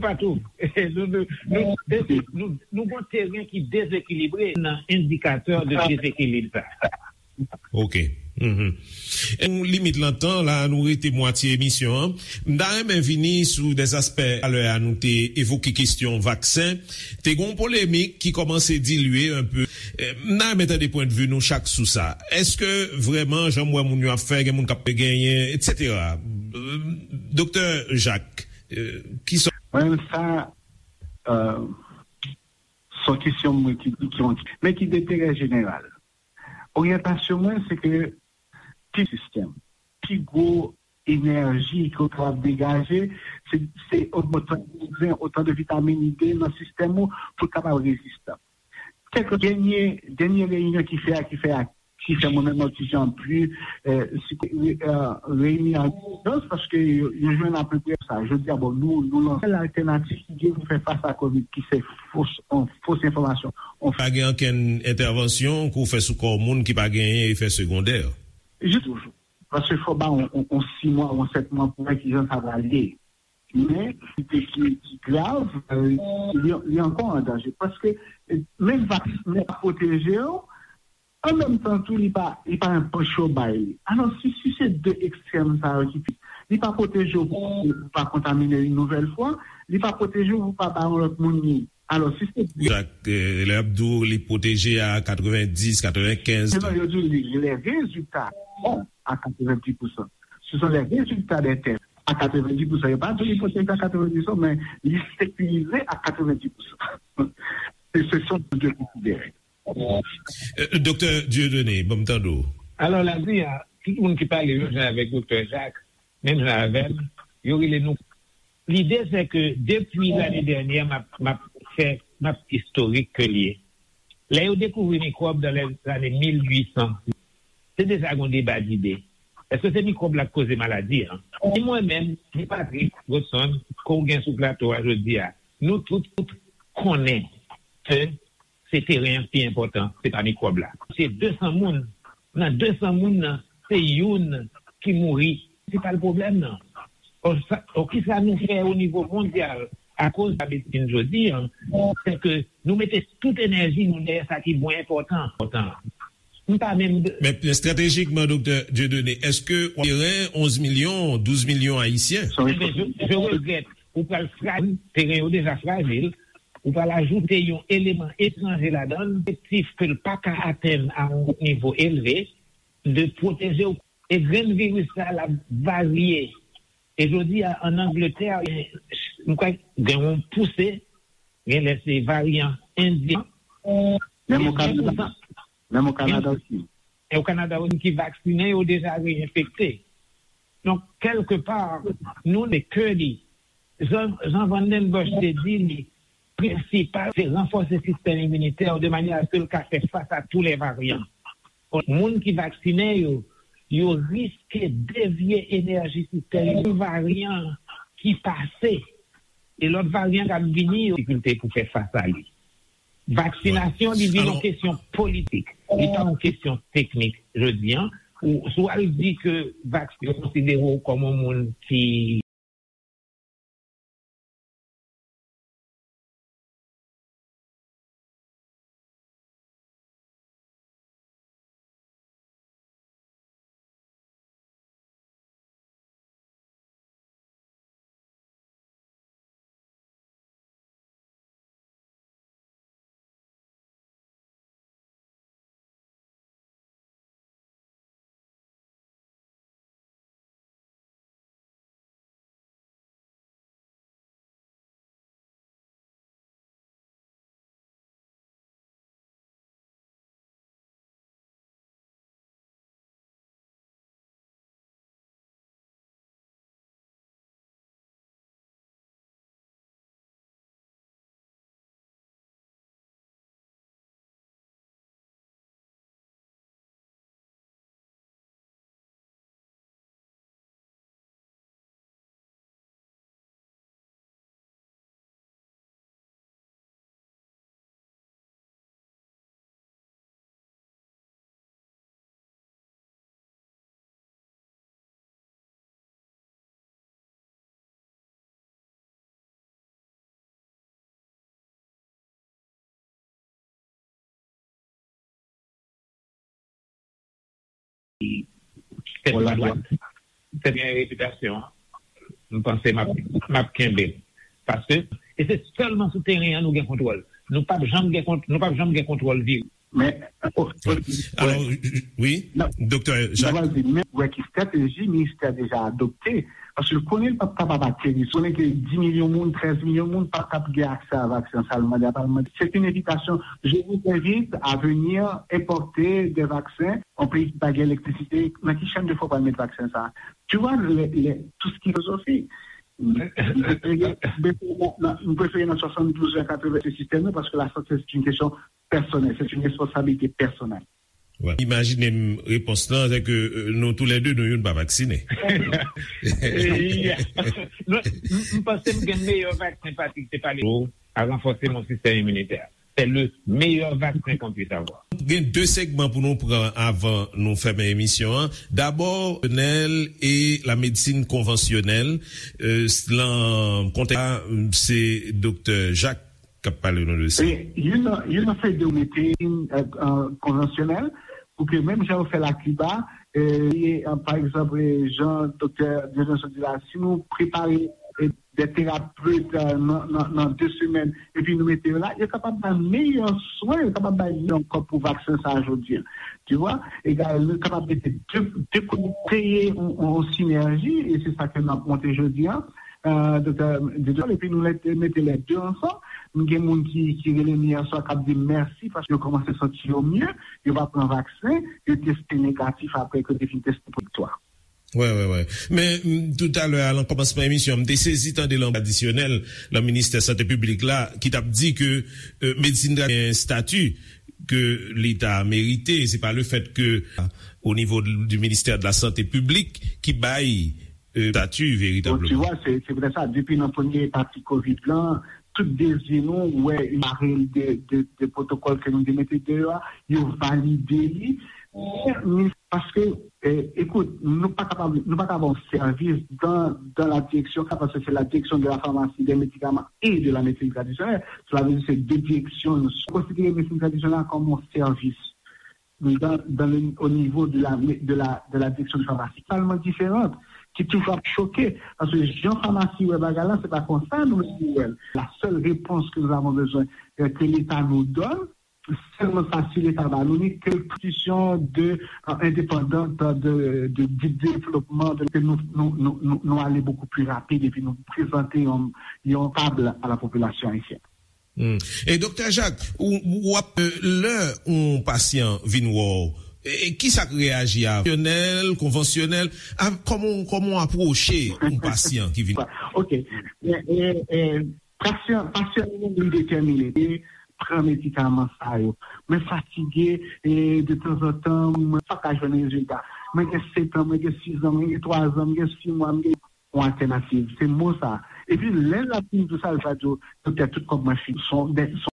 Patou, nou, nou, nou, nou, nou gon teren ki dezekilibre nan endikatè de dezekilib sa. Ok. Mhm. Nou limit lan tan la, nou rete mwatye emisyon an. M ta renmen vini sou dè aspè talè a, nou te evoke kesyon vaksen. Te gon polemik ki kòmanse dilye enpe. Eh, m ta renmen tande pwendvi nou chak sou sa. Èske vrèman, jan m wè moun yo ap fè, gen moun k ap genyen, etsetera? Eh, Doktè Jacques, eh, ki sa? Mwen menm sa, eh, se yon kesyon mwen ki di ki yon, men ki denterè jeneral. Oryantasyon mwen, se ke pi sistèm, pi gwo enèji ke w kapab degaje, se, se otan de vitamin D nan sistèm ou pou l kapab rezistan. Kèk dènye, dènye reyinyon ki fè a, ki fè a, ki fè mwen menm mwen ti jan pli, eh, si, eh, reyini an ijans, paske yo, yo jwenn apeprè sa. Jodi a, bon, nou, nou lanse sèl altènativ ki gen pou fè fas a kovid, ki se fos, on, fos enfòmasyon. On... Pa gen okenn entèvansyon ke w fè sou kò moun ki pa genyen efè segondè? Jis toujou. Paske fò ba on, on, on sis mwa, on sèt mwa pou wè kijan sa pral ye. Men, ki, ki, ki grav, eh, li, li ankò an danje. Paske, eh, menm vaksen an pwoteje w, an menm tan tou, li pa, li pa anpeche w bay li. Alò, si, si se de ekstrèm sa yo ki pi, li pa pwoteje w pou, pou pa kontamine yon nouvèl fwa, li pa pwoteje w pou pa ba yon lòt moun li. Alò, si se... Wi, Jacques, eh, lè y ap di w li pwoteje a katrevenndis, katrevenkenz. Non, yo di w li, lè rezilta bon a katrevenndis pousan. Ce sont les résultats des tests. A katrevenndis pousan. Yo pa di w li pwoteje a katrevenndis pousan, men li sekirize a katrevenndis pousan. Se, se sa nou dwe konsidere. Eh, Doktè Dieudonné, ban m tande w. Alò, la di a, tout moun ki pale menm jan avèk Doktè Jacques, menm jan avè m, yo rele nou. Lide se ke depi lane dènyè, m ap, m ap fè, m ap istorik ke l ye. Lè yo dekouvri mikwòb dan lè zane mil uit san, te deja gon deba dide. Èske se mikwòb la k koze maladi an? Ni mwen menm, ni Patrick Godson, ke w gen sou plato a jodi a, nou tout, tout konnen ke se teren an ki pi enpòtan, se pa mikwòb la. Se de san moun, nan de san moun nan, se youn ki mouri. Se pa l pwoblèm nan. Ò, sa, ò, kisa nou fè o nivo mondyal akoz la medsin jodi an, se ke nou mete tout enèji nou dèyè sa ki mwen enpòtan, enpòtan. M pa menm... Men estratejikman, Doktè Dieudonné, èske w teren onz milyon, douz milyon ayisyen? Ebyen, je, je regrèt, ou pral frajil, teren yo deja frajil, ou pral ajoute yon eleman etranje ladan l, efektif ke l pa ka atenn a yon nivo elve, de pwoteje w. E grenn viris sa, l ap varye. E jodi a, ann Angletè, m kwè gen yon pouse, genlè se varyan endyen. Menm o Kanada, menm o Kanada osi. E o Kanada osi ki vaksinen, yo deja reenfekte. Donk, kèlkepa, nou, le kè li, Jan, Jan Van Den Bush te di li, prensipal, se ranfòse sistèm iminitè w de manyè a ke l ka fè fas a tou lè varyan. Moun ki vaksinen yo, yo riske devye enèji sistèm yon varyan ki pase, e lòt varyan k ap vini yo difikilte pou fè fas a li. Vaksinasyon, li vin yon kesyon politik, li pa yon kesyon teknik. Jodi an, ou, si w al di ke vaksin, yo konsidere w kòm yon moun ki Sèt Madwad. Sèt gen repitasyon an. M panse m ap, m ap kenbe l. Paske, e se sèlman sou teren an nou gen kontwòl. Nou p ap janm gen kont-, nou p ap janm gen kontwòl vire. Men, o, o, Alò, wi, Doktè Jacques. Mwen di, men, wè ki estrateji ministè a deja adopte, paske l konnen l p ap kapab ateri, l konnen ke dis milyon moun, trèz milyon moun p ap kab gen aksè a vaksen, sa l mande a pa l mande. C'est une invitation. Je vous invite à venir importer des vaccins, yon peyi ki pa gen elektrisite, nan ki chèn de fwa w pral met vaksen sa a? Tu vois, le, le, tout ce qui est filozofik. M prefere nan, nan, m prefere nan swasanndouz an katreven se sistèm nan, paske lasante se yon kesyon pèsonèl, se yon responsabilite pèsonèl. Imajine m repons lan, se ke nou toulède nou youn pa vaksinen. M panse m gen meyè vaksen, Patrick, se pale a ranfòse mon sistèm iminitè. C'est le meilleur vaccin qu'on puisse avoir. Gen de segman pou nou pran avan nou fèmen emisyon an. Dabò, nèl e la medsin konvansyonèl. Lan kontèks la, se Doktè Jacques k ap pale nou de sa. Youn nan fè de mete konvansyonèl pou ke menm jan yo fè l a Kiba, pa egzanp, jan Doktè Dieudonné sot di la, si nou prepare de terapet nan de semèn, epi nou mete yo la, yo kapab bay meyè swen, yo kapab bay meyè ankò pou vaksen sa a jodi a. Tu vois, egal, nou kapab mete de, de kote, kreye yon sinèji, e se sa ke n ap monte jodi a. Doktè Didol, epi nou mete lè de ansanm. M gen moun ki, ki rele m yè swa k ap di m mèsi paske yo kòmanse santi yo mye, yo va pran vaksen, yo teste negatif apre ke yo te fin teste pozitif. Wi, wi, wi. Men, m, toutalè a, nan kòmansman emisyon, m te sezi tande lan tradisyonèl, lan ministè sante piblik la, ki t ap di ke medsin tradisyonèl gen estati ke li ta merite. Se pa lefèt ke, o nivo di ministè de la sante piblik, ki bay estati veritableman. Bon, tu vois, c'est, c'est peut-être ça. Depi nan premye pati kovid lan, tout dezi nou, ou wè, yon parèy de, de, de pwotokòl ke nou te mete deyò a, yo valide li. Men, paske, eh, écoute, nou pa kapab, nou pa ka ba w sèvis dans, dans la direction, parce que c'est la direction de la pharmacie, des médicaments et de la médecine traditionnelle. Cela veut dire c'est deux directions. Nou konsidere medsin tradisyonèl la kòm yon sèvis dans, dans le, au niveau de la, de la, de la direction de pharmacie, totalement différente, ki toujou ap choke, paske jan famasi wè bagay la, se pa konsa nou menm nou wè l. La seule réponse que nous avons besoin, euh, que l'État nous donne, sèlman sa, si Leta ba nou li, ke l konstitisyon de, euh, endépendante de, de, de développement, de, ke nou, nou, nou, nou, nou ale beaucoup plus rapide, epi nou prezante yon, yon tab a la popilasyon ayisyèn. Hmm. E Doktè Jacques, ou, ou ap, euh, lè yon pasyan vin wè w, e, e kisa k reyaji a? Pwofesyonèl, konvansyonèl, a, kòman, kòman w apwoche yon pasyan ki vin? Ok. E, e, e, pasyan, pasyan nou li detèmine, li pran medikaman sa yo. Mwen fatige, e, de tanzantan, mwen pa ka jwenn rezilta. Mwen gen sèt an, mwen gen sis an, mwen gen twa zan, mwen gen sis mwa, mwen gen yon altènativ. Se mo sa. Epi lè l ap fin di w sa, l va di w, doktè, tout kòb mwen fini. Son, de, son.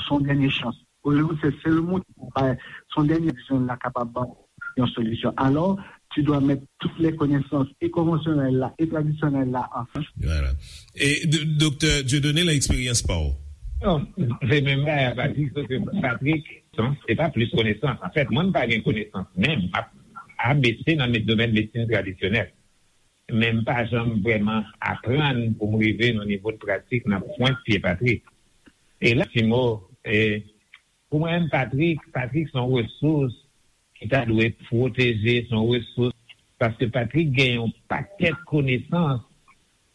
Son dènye chans. Olyou se sèl moun ki pou bay son dènye dizon la kapab ban yon solisyon. Alò, Tu dois mettre toutes les connaissances, et konvansyonèl la, et tradisyonèl la, ansanm. Voilà. E, d-, Doktè Dieudonné, nan eksperyans pa w? Non, se menm bagay a Patrick, se ke Patrick, non, se pa plis konesans. Anfèt, mwen, m pa gen konesans menm. M ap A B C nan med-, domèn medsin tradisyonèl. Men m pa janm vrèman aprann pou m rive nan nivo de pratik nan pwent pye Patrick. E la, ti mo, e, pou mwen, Patrick, Patrick se yon resous ki ta dwe pwoteje, se yon resous, paske Patrick gen yon pakèt konesans.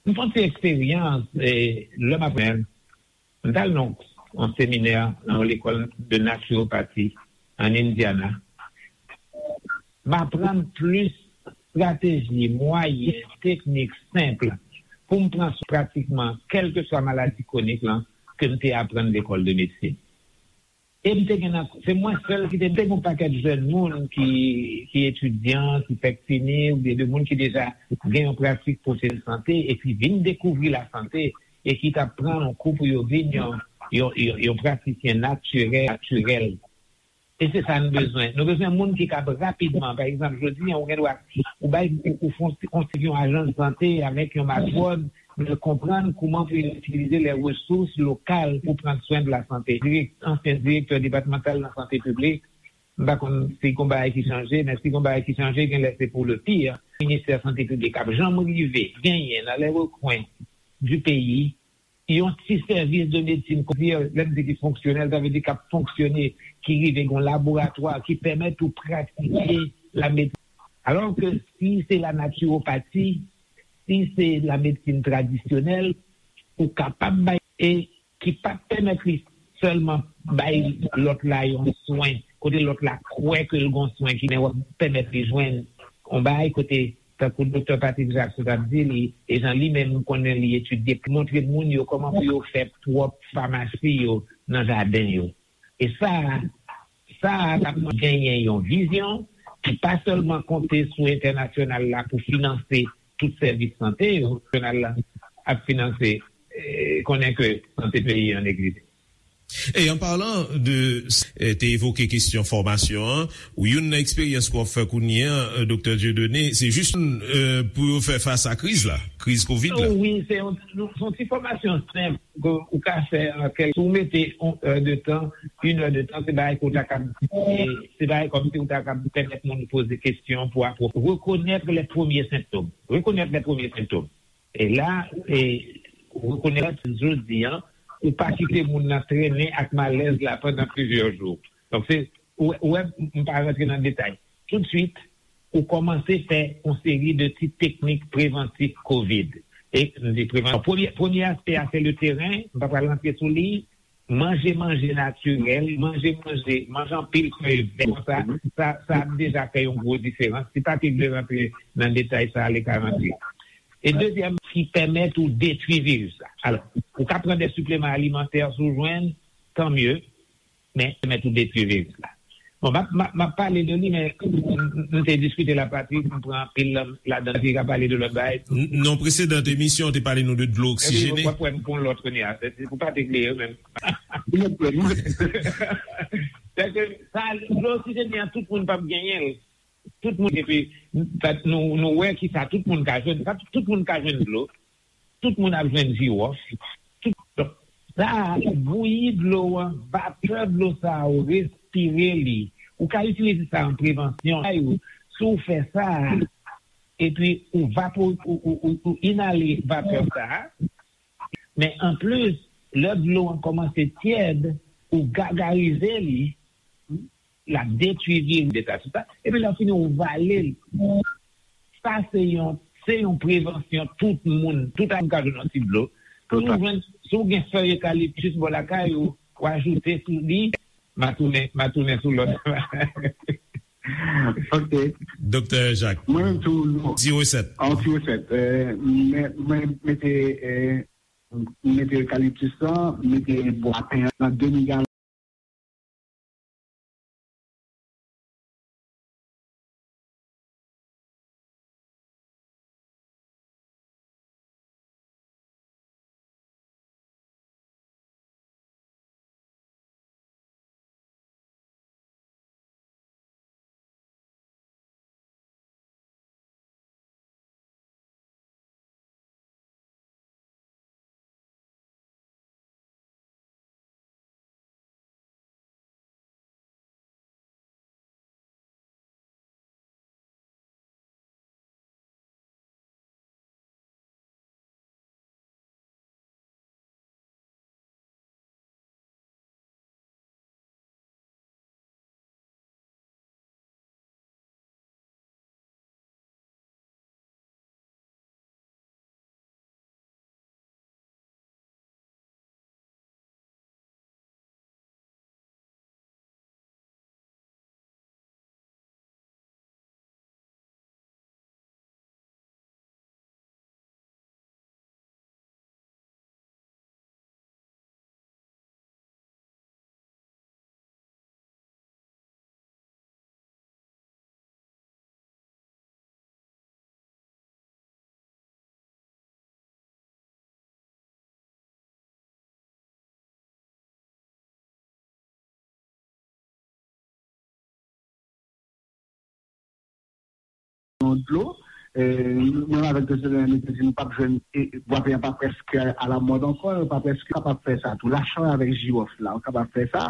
M fè yon ti eksperyans, e, lè m ap, m t al nan yon seminè nan yon lekòl de naturopati an Indiana. M aprann plis estrateji, mwayen, teknik senp pou m pran swen pratikman kèlkeswa maladi kwonik lan ke m te aprann lekòl de medsin. E m te gen nan, se mwen sèl ki te, m te gen yon pakèt jèn moun ki, ki etidyan, ki fèk fini, oubyen de moun ki deja gen yon pratik pwofesyonèl sante, epi vin dekouvri lasante, e ki t ap pran yon kou pou yo vin yon, yon, yon, yon pratisyen natirèl, natirèl. E se sa n bezwen. Nou bezwen moun ki kab rapidman. Pa egzanp, jodi a, ou gen dwa, ou bay, ou, ou fon, ou yon ajans sante avèk yon matwòn, men konprann kouman pou yo itilize lè resous lokal pou pran swen de la sante. Dirèk-, ansyen direktè depatmantal nan sante piblik, m pa konn si gon bagay ki chanje, men si gon bagay ki chanje, gen lè se pou le pire. Ministè sante piblik ap janm rive genyen nan lè rekwen du peyi yon ti sèvis de medsin, lè m di ki fonksyonèl, sa vle di k ap fonksyone, ki rive gen yon laboratwa ki pèmèt ou pratike la medsin. Alò ke si se la naturopati, si se la medsin tradisyonèl, ou kapab bay, e ki p ap pèmèt li sèlman bay lòt la yon swen, kote lòt la kwè ke l gon swen ki, men w ap pèmèt li jwenn yon bagay kote, tankou Doktè Patrick Jacques t ap di li, e jan li menm konnen li etidye, montre moun yo kòman pou yo fè pwòp famasi yo nan jaden yo. E sa, sa a t ap genyen yon vizyon ki pa sèlman konte sou entènasyonal la pou finanse tout sèvis sante yo, entènasyonal la ap finanse, eh, konnen ke sante peyi an neglije. E an palan de, eh, te evoke kesyon fòmasyon an, ou youn nan eksperyans ke w ap fè kounye a, eh, Doktè Dieudonné, se jis, eh, pou yo fè fas a kriz la, kriz kovid la. Oh, wi, se yon, se yon ti fòmasyon senp ke ou ka fè an kèk, si w mete yon è de tan, yon è de tan, se bagay ke w ta kab, eh, se bagay kòmsi ou ta kab pèmèt moun poze kesyon pou apwo-, rekonèt lè premye sentòm. Rekonèt lè premye sentòm. E la, e, ou rekonèt jodi a, ou pa kite moun nan trennen ak malèz la pandan plizyè jou. Donk, se, ou, ou wè, m pa rantre nan detay. Toutswit, ou kòmanse fè yon seri de ti teknik prevantif kovid. E, m di prevan-, premye, premye aspè a, se le teren, m pa pral rantre sou li, manje manje natirèl, manje manje, manje anpil fèy vè, sa, sa, sa ap deja fè yon gwo diferans. Si Patrick vle rantre nan detay sa, li ka rantre. E dezyèm, ki pèmèt ou detwi viris la. Alò, ou ka pran de sipleman alimantè si w jwenn, tan mye, men pèmèt ou detwi viris la. Bon, m ap, m ap, m ap pale de li, men m, m, m te diskite la, Patrick, m pran anpil la, ladan, Patrick ka pale de lòt bagay. N-, nan presedan emisyon, w te pale nou de dlo oksijene. Epi, w ap wè m pran lòt kounye a, se, se pou Patrick li ye menm. Sèke sa, dlo oksijene an, tout moun p ap genyen l. Tout moun, epi, nou, nou wè ki sa tout moun ka jwenn, sa tout moun ka jwenn dlo. Tout moun ap jwenn jiwòf. Tout, donk, sa a, ou bouyi dlo an, vapè dlo sa a, ou respire li. Ou ka itilize sa an prevansyon. Si w fè sa, epi ou vapo-, ou, ou, ou, ou inale vapè sa a, men anplis, lè dlo an kòmanse tyèd, ou gagarize li, l ap detwi viris de sa, tout sa. Epi lè w fini, ou vale l. Sa se yon, se yon prevansyon tout moun, tout moun ka jwenn yon ti dlo. Si w jwenn, si w gen fèy ekaliptis bò lakay ou, ou ajoute sou li, m a tounen, m a tounen sou lòt. Ok. Doktè Jacques. Mwen menm tou, non. Ti resèt. An ti resèt. Eh, mwen, mwen mete, eh, mete ekaliptis lan, mete bwa pen an nan demi galon. yon dlo. Mwen avèk Doktè Daniel nou te di nou p ap jwenn, bwa pè a pa prèske alamòd ankò, yo pa prèske kapab fè sa tou. Lachanm avèk jiwòf la, ou kapab fè sa.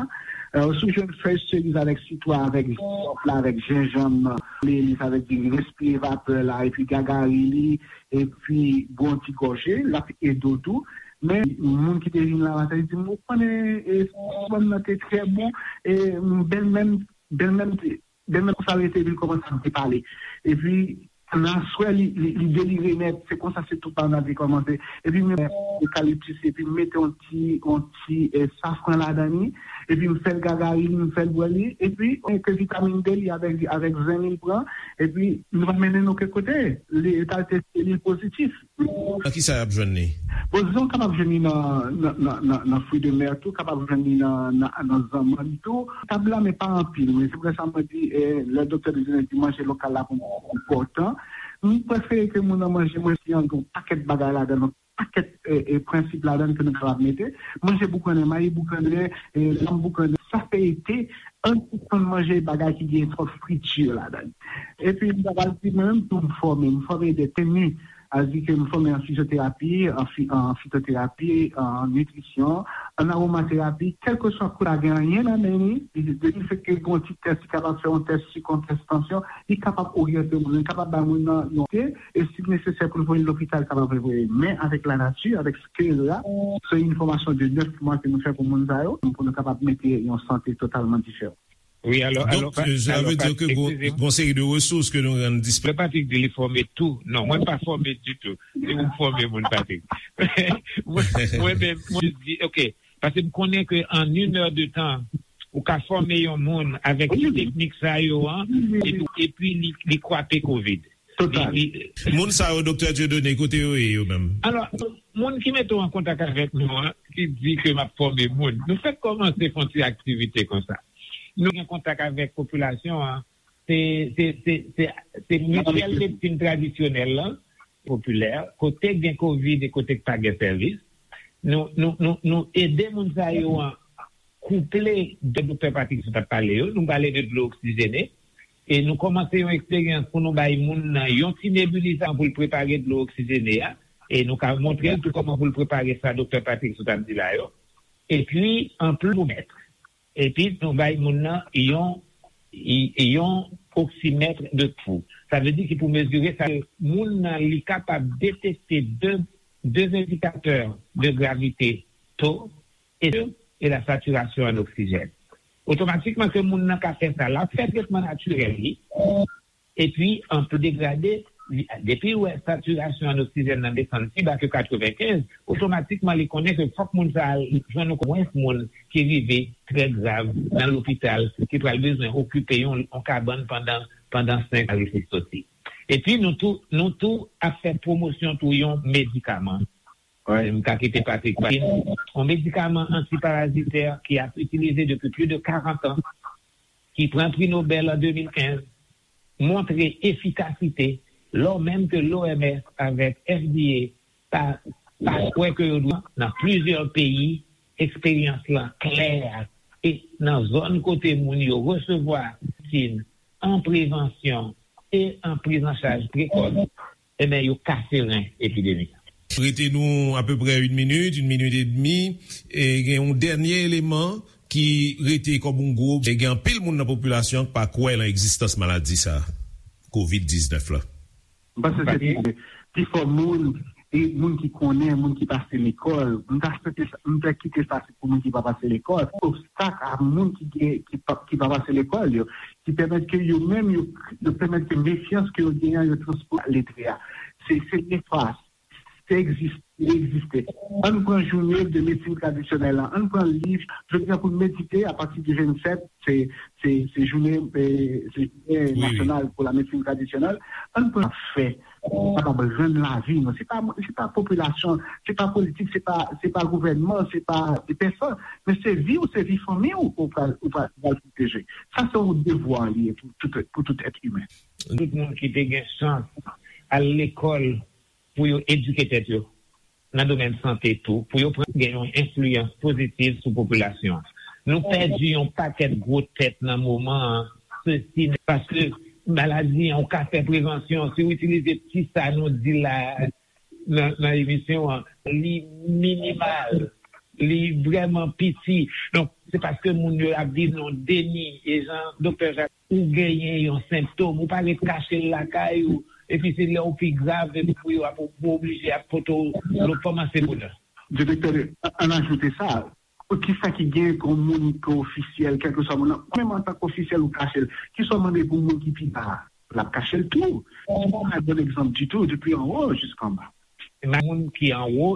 Ou si w jwenn fèy seriz avèk sitwon, avèk jiwòf la, avèk jenjanm, melis avèk diri, respire vapè la, epi gagari li, epi bwè yon ti gòje, l ap ede w tou. Men moun ki te vin la maten, li di m, ou konnen, e, sitwon nan te trè bon, e, bèlmè m, bèlmè m te, bèlmè m konsa rete, epi l kòmanse ap depale. Epi, nan aswè, li, li, li delire nèt, se konsa se tout bagay te kòmanse. Epi, m ekaliptis, epi m mete yon ti, yon ti, e, safran ladan li, epi m fè l gagari li, m fè l bwè li, epi, e, ke vitamin D li avèk, avèk zen li l pran, epi, nou pa mennen n okenn kote. Li, e ta te selil pozitif. Nan ki sa y ap jwenn li? Bon, dizon, kapab jwenn li nan, nan, nan, nan, nan fwi de mè tou, kapab jwenn li nan, nan, nan zanmann tou. Tab la, men pa anpil. Men se pou sa mwen di, eh, lè doktè Dezene di manje lokal la pou mwen enpòtan, m prefere ke moun nan manje mwen si an gen yon pakèt bagay ladan, yon pakèt, eh, eh, prensip ladan ke nou kapab mete. Manje boukannen, mayi boukannen, eh, lanm boukannen, sa fè ete, ann sispann manje bagay ki gen twòp friti ladan. Epi, m ta pral di, mwen menm tou, m fòme, m fòme de teni, a di ke m fòme an fizyoterapi, an fi-, an fitoterapi, an nitrisyon, an awomaterapi, kèlkeswa kote la gen anyen nan men li, li, li fè ke gen yon ti tès, li kapab fè yon tès sik, yon tès tansyon, li kapab oryante moun, li kapab bay moun nan yon te, e si nesesè pou l voye l lopital, li kapab voye. Men avèk lanati, avèk Kè la, se yon fòmasyon de nèf mwa ke nou fè pou moun sa yo, pou nou kapab mete yon sante totalman diferan. Wi, alò, alò, Donk, pa- sa alò, vle di Pat- ke gon, eskize m. Gon seri de resous ke nou rann disponib. Lè Patrick di li fòme tou. Non, mwen pa fòme ditou. Se ou k fòme moun, Patrick. Mwen, mwen menm, mwen di, ok, paske m konnen ke an une heure de temps, ou ka fòme yon moun avèk Wi. Teknik sa yo an, Wi. Epi, epi li, li kwape kovid. Total. Li, li, Moun sa yo, doktè Dieudonné, kote yo ye, yo menm? Alò, moun ki mete w an kontak avèk nou an, ki di ke m ap fòme moun, nou fèk kòmanse fè yon ti aktivite konsa. Nou gen kontak avèk popilasyon an, se, se, se, se, se mityèl medsin tradisyonèl la, popilè, kote gen kovid e kote k pa gen sèvis. Nou, nou, nou, nou ede moun sa yo an kouple de doktè Patrick sot ap pale yo, nou pale de dlo oksijene, e nou kòmanse yon eksperyans pou nou bay moun nan yon ti nebilizan pou l prepare dlo oksijene a, e nou ka montre l tou kòman pou l prepare sa doktè Patrick sot ap di la yo. Epi, anplis, pou mèt. Epi, nou bay moun nan yon, yon oksimèt de pou. Sa vle di ki pou mezire sa, moun nan li kapab detekte de, de endikatè de gravite, to, e, e la saturation an oksijèn. Otomatikman ke moun nan ka fè sa, l ap fè tretman natirèl li, epi an pou degrade, li, depi w wè satirasyon an oksijèn nan desann pi ba ke katrevenkenz, otomatikman li konnen ke fòk moun sa a jwenn omwens moun ki rive trè grav nan lopital, ki pral bezwen okipe yon, yon kabann pandan, pandan senk a rive soti. Epi nou tou, nou tou ap fè pwomosyon tou yon medikaman. Wi. M ka kite Patrick pale. Yon medikaman antiparazitè ki ap itilize depi plis de karant an, ki pran pri Nobèl an de mil kenz, montre efikasite, lò menm ke l'O M S avèk F D A pa, pa kwè ke yo dwe nan plizyè peyi, eksperyans lan klè, e nan zòn kote moun yo resevwa medsin an prevansyon e an prizanchaj prekòs, ebyen, yo kase ren epidemi a. Rete nou apeprè yon minit, yon minit edmi, e gen yon dènye eleman ki rete kòm yon gwo, e gen anpil moun nan popilasyon an ki pa kwè nan egzistans maladi sa, kovid diznèf la. M panse se pi, pi fò moun, e moun ki konnen, moun ki pase lekòl. M ta swete sa, m ta kite sa se pou moun ki pa pase lekòl. Obstak a moun ki gen, ki pa, ki pa pase lekòl yo, ki pèmèt ke yo menm, yo, yo pèmèt ke mefyans ke yo genyen an, yo transpoze letre a. Se, se nefas. Se egzis-, li egziste. Ann pran jounen de medsin tradisyonèl la. Ann pran liv, jodi a pou n medite apati de vennsèt, se, se, se jounen, eh, se jounen Wi, wi. Nasyonal pou la medsin tradisyonèl. Ann pran fè, pou kapab rann lavi nou. Se pa, se pa popilasyon, se pa politik, se pa, se pa gouvènman, se pa de pèsòn, men se vi w, se vi fanmi w, ou pral, ou pral, ou pral pwoteje. Sa se yon devwa li ye pou tout, pou tout èt imen. Tout moun ki te gen chans al lekòl pou yo edike tèt yo nan domèn sante tou, pou yo pran, gen yon enfliyans pozitiv sou popilasyon an. Nou pèdi yon pakèt gwo tèt nan moman an, sesi, paske maladi an, ou ka fè prevansyon. Si w itilize ti sa nou di la nan, nan emisyon an, li minimal, li vrèman piti. Donk, se paske moun yo ap viv nan deni, e jan Doktè Jacques, ou genyen yon senptòm, ou pa ret kache l lakay ou, epi se lè w pi grav, epi pou yo ap, ou oblije ap pote w lòt fòm an se bonè. Direktè, ann ajoute sa, ki sa ki gen pou moun ki ofisyèl, kèlkeswa moun nan, menm antanke ofisyèl ou kache l, ki sa w mande pou moun ki pi ba a, l ap kache l tou. Se pa yon bon egzanp ditou, depi anwo jiskanba. Moun ki anwo,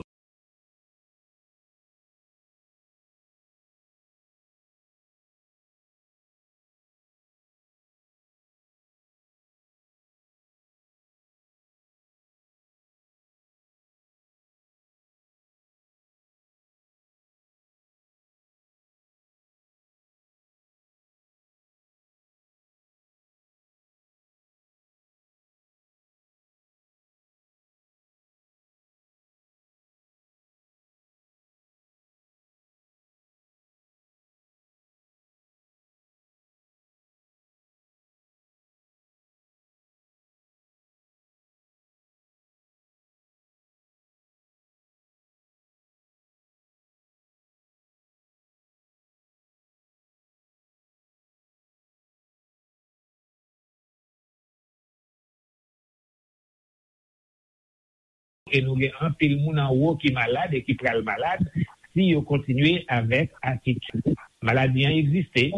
E nou gen anpil moun anwo ki malad e ki pral malad si yo kontinye avèk atitid. Maladi an egziste.